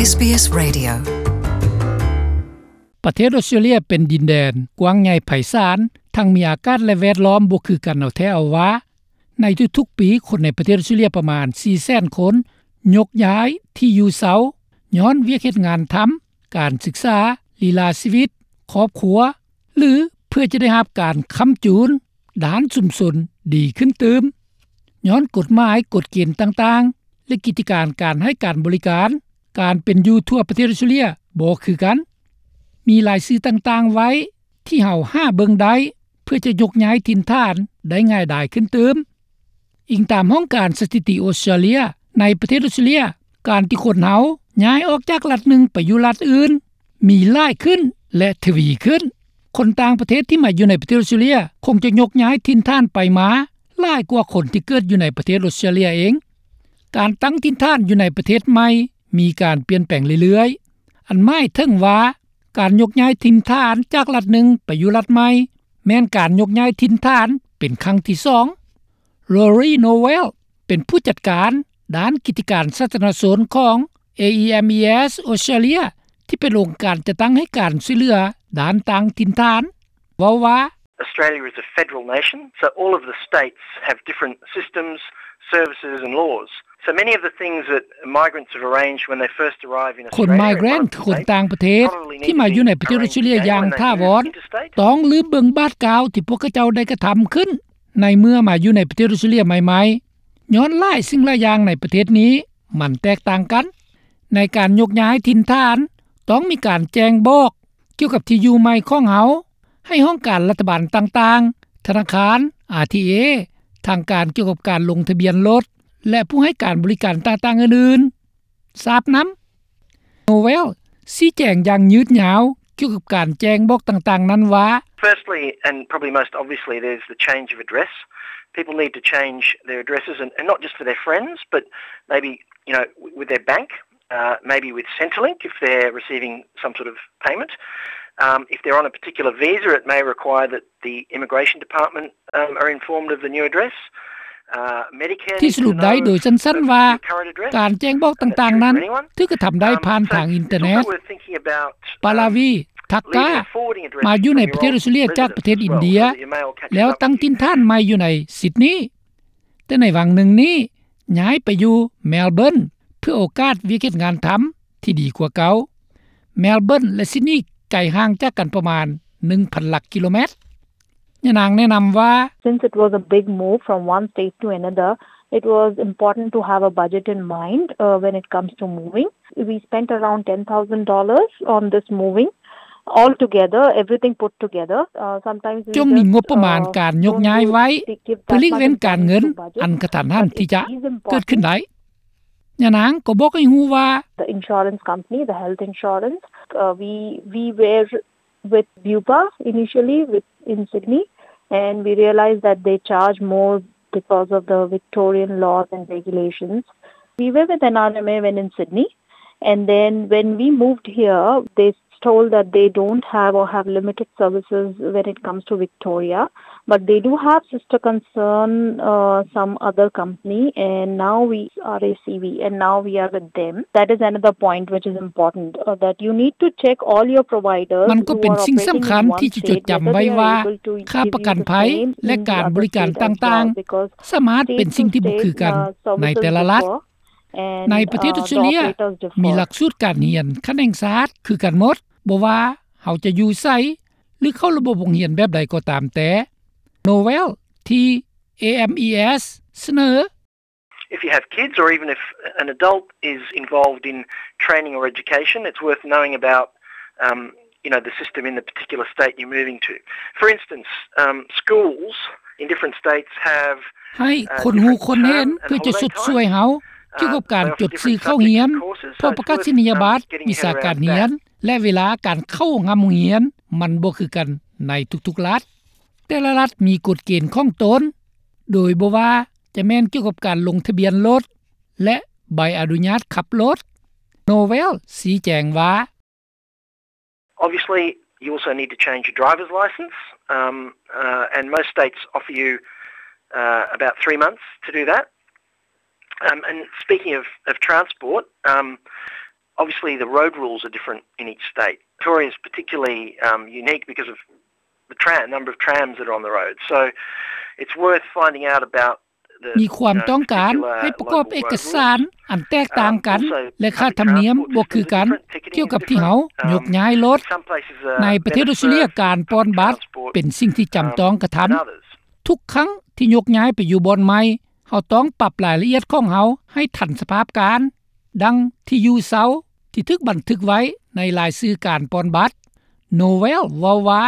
ເອສບີເອສ Radio. ປະເທດອົດສະຕຣາເລຍເປັນດິນແດນກວ້າງໃຫຍ່ໄພສານ, ທັງມີອາກາດ ແລະ ແວດລ້ອມບໍ່ຄືກັນເອົາແທ້ເອົາວ່າ. ໃນທຸກໆປີ, ຄົນໃນປະເທດອົດສະຕຣາເລຍປະມານ ສີ່ແສນ ຄົນ ຍົກຍ້າຍທີ່ຢູ່ເຊົາ ຍ້ອນວຽກເຮັດງານທຳ, ການສຶກສາ, ລີລາຊີວິດ, ຄອບຄົວ ຫຼື ເພື່ອຈະໄດ້ຮັບການຄ້ຳຈູນດ້ານຊຸມຊົນດີຂຶ້ນຕື່ມ. ຍ້ອນກົດໝາຍ, ກົດເກນຕ່າງໆ ແລະ ກິດຈະການການໃຫ້ການບໍລິການ, ການເປັນຢູ່ທົ່ວປະເທດອົດສະຕຣາເລຍບໍ່ຄືກັນ. ມີລາຍຊື່ຕ່າງໆໄວ້ທີ່ເຮົາຫາເບິ່ງໄດ້ ເພື່ອຈະຍົກຍ້າຍຖິ່ນຖານໄດ້ງ່າຍດາຍຂຶ້ນຕື່ມ. ອີງຕາມຫ້ອງການສະຖິຕິອົດສະຕຣາເລຍ, ໃນປະເທດອົດສະຕຣາເລຍ, ການທີ່ຄົນເຮົາຍ້າຍອອກຈາກລັດໜຶ່ງໄປຢູ່ລັດອື່ນ ມີຫຼາຍຂຶ້ນ ແລະ ທະວີຂຶ້ນ. ຄົນຕ່າງປະເທດທີ່ມາຢູ່ໃນປະເທດອົດສະຕຣາເລຍ ຄົງຈະຍົກຍ້າຍຖິ່ນຖານໄປມາຫຼາຍກວ່າຄົນທີ່ເກີດຢູ່ໃນປະເທດອົດສະຕຣາເລຍເອງ. ການຕັ້ງຖິ່ນຖານຢູ່ໃນປະເທດໃໝ່ມີການປ່ຽນແປງເລື້ອຍໆ, ອັນໝາຍເຖິງວ່າ ການຍົກຍ້າຍຖິ່ນຖານຈາກລັດໜຶ່ງໄປຢູ່ລັດໃໝ່ ແມ່ນການຍົກຍ້າຍຖິ່ນຖານເປັນຄັ້ງທີສອງ. Rory Nowell ເປັນຜູ້ຈັດການດ້ານກິດຈະການສາທາລະນະຊົນຂອງ AEMES Australia ທີ່ເປັນອົງການຈັດຕັ້ງໃຫ້ການຊ່ວຍເຫຼືອດ້ານຕັ້ງຖິ່ນຖານ ເວົ້າວ່າ Australia is a federal nation, so all of the states have different systems, services and laws. So many of the things that migrants have arranged when they first arrive in Australia, ຄົນໄມເກຣນ ຄືຄົນຕ່າງປະເທດ ທີ່ມາຢູ່ໃນປະເທດອົດສະຕຣາເລຍຢ່າງຖາວອນ ຕ້ອງລືມເບິ່ງບາດກ້າວທີ່ພວກເຂົາເຈົ້າໄດ້ກະທຳຂຶ້ນ ໃນເມື່ອມາຢູ່ໃນປະເທດອົດສະຕຣາເລຍໃໝ່ໆ ຍ້ອນຫຼາຍສິ່ງຫຼາຍຢ່າງໃນປະເທດນີ້ມັນແຕກຕ່າງກັນ. ໃນການຍົກຍ້າຍຖິ່ນຖານ ຕ້ອງມີການແຈ້ງບອກກ່ຽວກັບທີ່ຢູ່ໃໝ່ຂອງເຮົາ ໃຫ້ຫ້ອງການລັດຖະບານຕ່າງໆ, ທະນາຄານ, ອາທີເອ, ທາງການກ່ຽວກັບການລົງທະບຽນລົດ ແລະ ຜູ້ໃຫ້ການບໍລິການຕ່າງໆອື່ນໆ ຊາບນຳ. Nowell ຊີ້ແຈງຢ່າງຍືດຍາວກ່ຽວກັບການແຈ້ງບອກຕ່າງໆນັ້ນວ່າ Firstly, and probably most obviously, there's the change of address. People need to change their addresses, and, and not just for their friends, but maybe, you know, w-, with their bank, uh, maybe with Centrelink if they're receiving some sort of payment. Um, if they're on a particular visa, it may require that the immigration department, um, are informed of the new address. Uh, Medicare ທີ່ສະຫຼຸບໄດ້ໂດຍສັ້ນໆວ່າ ການແຈ້ງບອກຕ່າງໆນັ້ນ ຖືກກະທຳໄດ້ຜ່ານທາງອິນເຕີເນັດ. ປາລາວີ ທັກກາ ມາຢູ່ໃນປະເທດອົດສະຕຣາເລຍຈາກປະເທດອິນເດຍ ແລ້ວຕັ້ງຖິ່ນຖານໃໝ່ຢູ່ໃນຊິດນີ. ແຕ່ໃນຫວ່າງໜຶ່ງນີ້ ຍ້າຍໄປຢູ່ແມລເບີນ ເພື່ອໂອກາດວຽກເຮັດງານທຳທີ່ດີກວ່າເກົ່າ. ແມລເບີນ ແລະ ຊິດນີ ໄກຫ່າງຈາກກັນປະມານ ໜຶ່ງພັນ ຫຼັກກິໂລແມັດ. ຍານາງແນະນຳວ່າ Since it was a big move from one state to another, it was important to have a budget in mind, uh, when it comes to moving. We spent around ten thousand dollars on this moving. Altogether, everything put together, uh, sometimes we ຈົ່ງມີງົບປະມານການຍົກຍ້າຍໄວ້ ເພື່ອຫຼີກເວັ້ນການເງິນອັນກະທັນຫັນທີ່ຈະເກີດຂຶ້ນໄດ້. ຍານາງກໍບອກໃຫ້ຮູ້ວ່າ The insurance company, the health insurance, uh, we, we were with Bupa initially with, in Sydney, and we realized that they charge more because of the Victorian laws and regulations. We were with N R M A when in Sydney, and then when we moved here, they told that they don't have or have limited services when it comes to Victoria, but they do have sister concern, uh, some other company, and now we are A C V, and now we are with them. That is another point which is important, uh, that you need to check all your providers. ມັນກໍເປັນສິ່ງສຳຄັນທີ່ຈະຈົດຈຳໄວ້ວ່າ ຄ່າປະກັນໄພ ແລະ ການບໍລິການຕ່າງໆ ສາມາດເປັນສິ່ງທີ່ບໍ່ຄືກັນໃນແຕ່ລະລັດ. ໃນປະເທດອົດສະຕຣາເລຍ ມີຫຼັກສູດການຮຽນຂັ້ນແຫ່ງຊາດຄືກັນໝົດ, ບໍ່ວ່າເຮົາຈະຢູ່ໃສ ຫຼື ເຂົ້າລະບົບໂຮງຮຽນແບບໃດກໍຕາມແຕ່. Nowell ທີ່ AEMES ສະເໜີ If you have kids, or even if an adult is involved in training or education, it's worth knowing about, um, you know, the system in the particular state you're moving to. For instance, um, schools in different states have, ໃຫ້ uh, ຄົນຮູ້ຄົນເຫັນ ເພື່ອຈະຊົດຊ່ວຍເຮົາກ່ຽວກັບການຈົດຊື່ເຂົ້າຮຽນ, ພວກປະກາດນີຍະບັດ, ວິຊາການຮຽນ ແລະ ເວລາການເຂົ້າຮ່ຳໂຮງຮຽນ ມັນບໍ່ຄືກັນໃນທຸກໆລັດ. ແຕ່ລະລັດມີກົດເກນຂອງຕົນ, ໂດຍບໍ່ວ່າຈະແມ່ນກ່ຽວກັບການລົງທະບຽນລົດ ແລະ ໃບອະນຸຍາດຂັບລົດ. Nowell ຊີ້ແຈງວ່າ Obviously, you also need to change your driver's license, um, uh, and most states offer you, uh, about three months to do that. Um, and speaking of, of transport, um, Obviously, the road rules are different in each state. Victoria is particularly, um, unique because of the tram, number of trams that are on the road. So it's worth finding out about the, ມີຄວາມຕ້ອງການໃຫ້ປະກອບເອກະສານອັນແຕກຕ່າງກັນ ແລະ ຄ່າທຳນຽມບໍ່ຄືກັນ ກ່ຽວກັບທີ່ເຮົາຍົກຍ້າຍລົດ. ໃນປະເທດອອສເຕຣເລຍ ການປ່ອນບັດເປັນສິ່ງທີ່ຈຳຕ້ອງກະທຳ. ທຸກຄັ້ງທີ່ຍົກຍ້າຍໄປຢູ່ບ່ອນໃໝ່ ເຮົາຕ້ອງປັບລາຍລະອຽດຂອງເຮົາໃຫ້ທັນສະພາບການ, ດັ່ງທີ່ຢູ່ເຊົາທີ່ຖືກບັນທຶກໄວ້ໃນລາຍຊື່ການປ່ອນບັດ. ໂນເວລເວົ້າວ່າ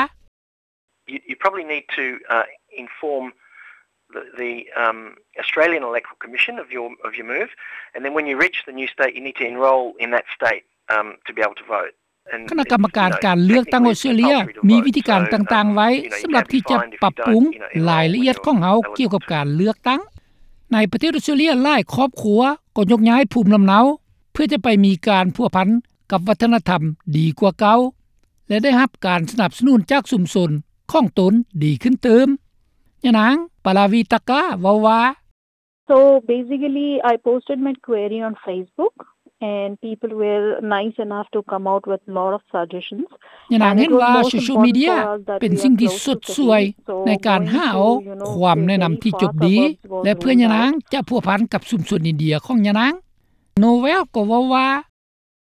You, you probably need to, uh, inform the, the, um, Australian Electoral Commission of your, of your move, and then when you reach the new state, you need to enrol in that state, um, to be able to vote. ຄະນະກຳມະການການເລືອກຕັ້ງອອສເຕຣເລຍມີວິທີການຕ່າງໆໄວ້ສຳລັບທີ່ຈະປັບປຸງລາຍລະອຽດຂອງເຮົາກ່ຽວກັບການເລືອກຕັ້ງ. ໃນປະເທດອອສເຕຣເລຍ ຫຼາຍຄອບຄົວກໍຍົກຍ້າຍພູມລຳເນົາ ເພື່ອຈະໄປມີການພົວພັນກັບວັດທະນະທຳດີກວ່າເກົ່າ ແລະ ໄດ້ຮັບການສະໜັບສະໜູນຈາກຊຸມຊົນຂອງຕົນດີຂຶ້ນຕື່ມ. ຍານາງ ປາລາວີຕາກາ ເວົ້າວ່າ So basically, I posted my query on Facebook, and people were nice enough to come out with lot of suggestions. ຍານາງເຫັນວ່າໂຊຊຽວມີເດຍເປັນສິ່ງທີ່ຊົດຊ່ວຍໃນການຫາເອົາຄວາມແນະນຳທີ່ຈົບດີ ແລະ ເພື່ອຍານາງຈະພົວພັນກັບຊຸມຊົນອິນເດຍຂອງຍານາງ. ໂນເວລກໍເວົ້າວ່າ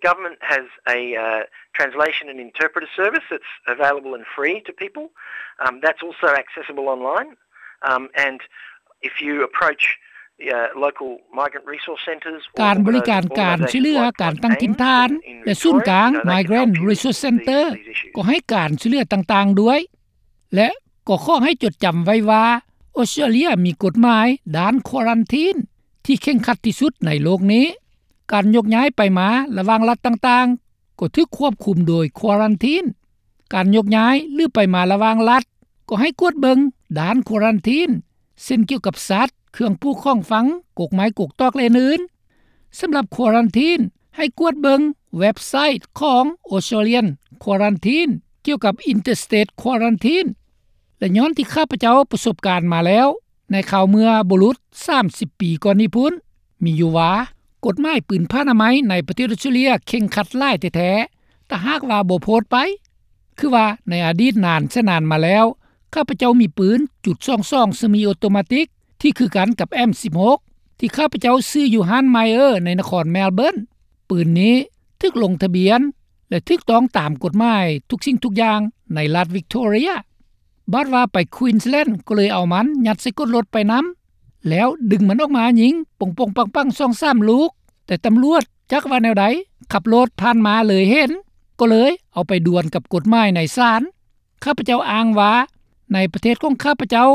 Government has a, uh, translation and interpreter service that's available and free to people. Um, that's also accessible online. Um, and if you approach, uh, local migrant resource centres, ການບໍລິການການຊ່ວຍເຫຼືອການຕັ້ງຖິ່ນຖານ ແລະ ສູນກາງ Migrant Resource Centre ກໍໃຫ້ການຊ່ວຍເຫຼືອຕ່າງໆດ້ວຍ ແລະ ກໍຂໍໃຫ້ຈົດຈຳໄວ້ວ່າ ອອສເຕຣເລຍມີກົດໝາຍດ້ານຄວາຣັນທີນທີ່ເຄັ່ງຄັດທີ່ສຸດໃນໂລກນີ້. ການຍົກຍ້າຍໄປມາລະຫວ່າງລັດຕ່າງໆ ກໍຖືກຄວບຄຸມໂດຍຄວາຣັນທີນ. ການຍົກຍ້າຍ ຫຼື ໄປມາລະຫວ່າງລັດ ກໍໃຫ້ກວດເບິ່ງດ້ານຄວາຣັນທີນ ເຊັ່ນ ກ່ຽວກັບສັດ, ເຄື່ອງປູກຂອງຝັງ, ກົກໄມ້ກົກຕອກ ແລະ ອື່ນໆ. ສຳລັບຄວາຣັນທີນ ໃຫ້ກວດເບິ່ງເວັບໄຊຂອງ Australian Quarantine ກ່ຽວກັບ Interstate Quarantine ແລະ ຍ້ອນທີ່ຂ້າພະເຈົ້າປະສົບການມາແລ້ວ ໃນຄາວເມື່ອບໍ່ຫຼຸດສາມສິບປີກ່ອນນີ້ພຸ້ນ ມີຢູ່ວ່າ ກົດໝາຍປືນຜ້າອະນາໄມໃນປະເທດອອສເຕຣເລຍເຄັ່ງຄັດຫຼາຍແທ້ໆ ຖ້າຫາກວ່າບໍ່ໂພດໄປ ຄືວ່າໃນອະດີດນານແສນນານມາແລ້ວ ຂ້າພະເຈົ້າມີປືນຈຸດສອງສອງ semi automatic ທີ່ຄືກັນກັບ M ສິບຫົກ ທີ່ຂ້າພະເຈົ້າຊື້ຢູ່ຮ້ານ Myer ໃນນະຄອນ Melbourne. ປືນນີ້ຖືກລົງທະບຽນ ແລະ ຖືກຕ້ອງຕາມກົດໝາຍທຸກສິ່ງທຸກຢ່າງໃນລັດ Victoria. ບາດວ່າໄປ Queensland ກໍເລີຍເອົາມັນຍັດໃສ່ກົ້ນລົດໄປນຳ ແລ້ວດຶງມັນອອກມາຍິງປົງໆປັງໆ ສອງສາມລູກ, ແຕ່ຕຳຫຼວດຈັກວ່າແນວໃດ ຂັບລົດຜ່ານມາເລີຍເຫັນ ກໍເລີຍເອົາໄປດວນກັບກົດໝາຍໃນສານ. ຂ້າພະເຈົ້າອ້າງວ່າ ໃນປະເທດຂອງຂ້າພະເຈົ້າ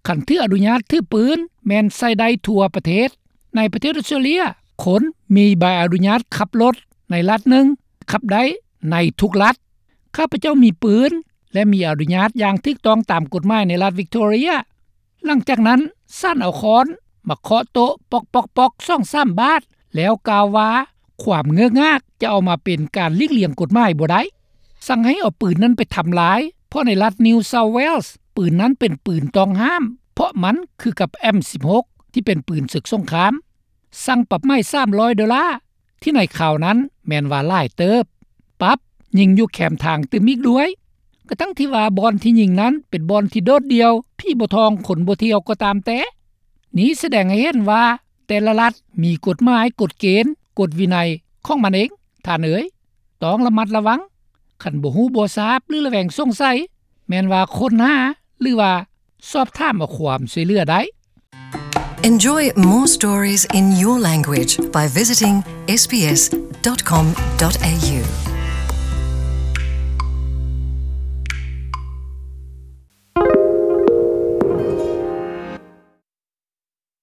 ຄັນຖືອະນຸຍາດຖືປືນແມ່ນໃຊ້ໄດ້ທົ່ວປະເທດ. ໃນປະເທດອອສເຕຣເລຍ ຄົນມີໃບອະນຸຍາດຂັບລົດໃນລັດໜຶ່ງ ຂັບໄດ້ໃນທຸກລັດ. ຂ້າພະເຈົ້າມີປືນ ແລະ ມີອະນຸຍາດຢ່າງຖືກຕ້ອງຕາມກົດໝາຍໃນລັດ Victoria. ຫຼັງຈາກນັ້ນ ສານເອົາຄ້ອນມາເຄາະໂຕະປອກໆໆ ສອງສາມບາດ ແລ້ວກ່າວວ່າ ຄວາມເງີກງາກຈະເອົາມາເປັນການຫຼີກລ່ຽງກົດໝາຍບໍ່ໄດ້. ສັ່ງໃຫ້ເອົາປືນນັ້ນໄປທຳລາຍ ເພາະໃນລັດ New South Wales ປືນນັ້ນເປັນປືນຕ້ອງຫ້າມ ເພາະມັນຄືກັບ M ສິບຫົກ ທີ່ເປັນປືນເສິກສົງຄາມ. ສັ່ງປັບໃໝສາມຮ້ອຍໂດລາ ທີ່ໃນຄາວນັ້ນແມ່ນວ່າຫຼາຍເຕີບ, ປັບຍິງຢູ່ແຄມທາງຕື່ມອີກດ້ວຍ. ກະທັ່ງທີ່ວ່າບ່ອນທີ່ຍິງນັ້ນເປັນບ່ອນທີ່ໂດດດ່ຽວ, ຜີບໍ່ທ່ອງຄົນບໍ່ທ່ຽວກໍຕາມແຕ່. ນີ້ສະແດງໃຫ້ເຫັນວ່າແຕ່ລະລັດມີກົດໝາຍ, ກົດເກນ, ກົດວິໄນຂອງມັນເອງ, ທ່ານເອີຍ. ຕ້ອງລະມັດລະວັງ. ຄັນບໍ່ຮູ້ບໍ່ຊາບ ຫຼື ລະແວງສົງໄສ, ແມ່ນວ່າຄົ້ນຫາ ຫຼື ວ່າສອບຖາມເອົາຄວາມຊ່ວຍເຫຼືອໄດ້. Enjoy more stories in your language by visiting S B S dot com dot A U.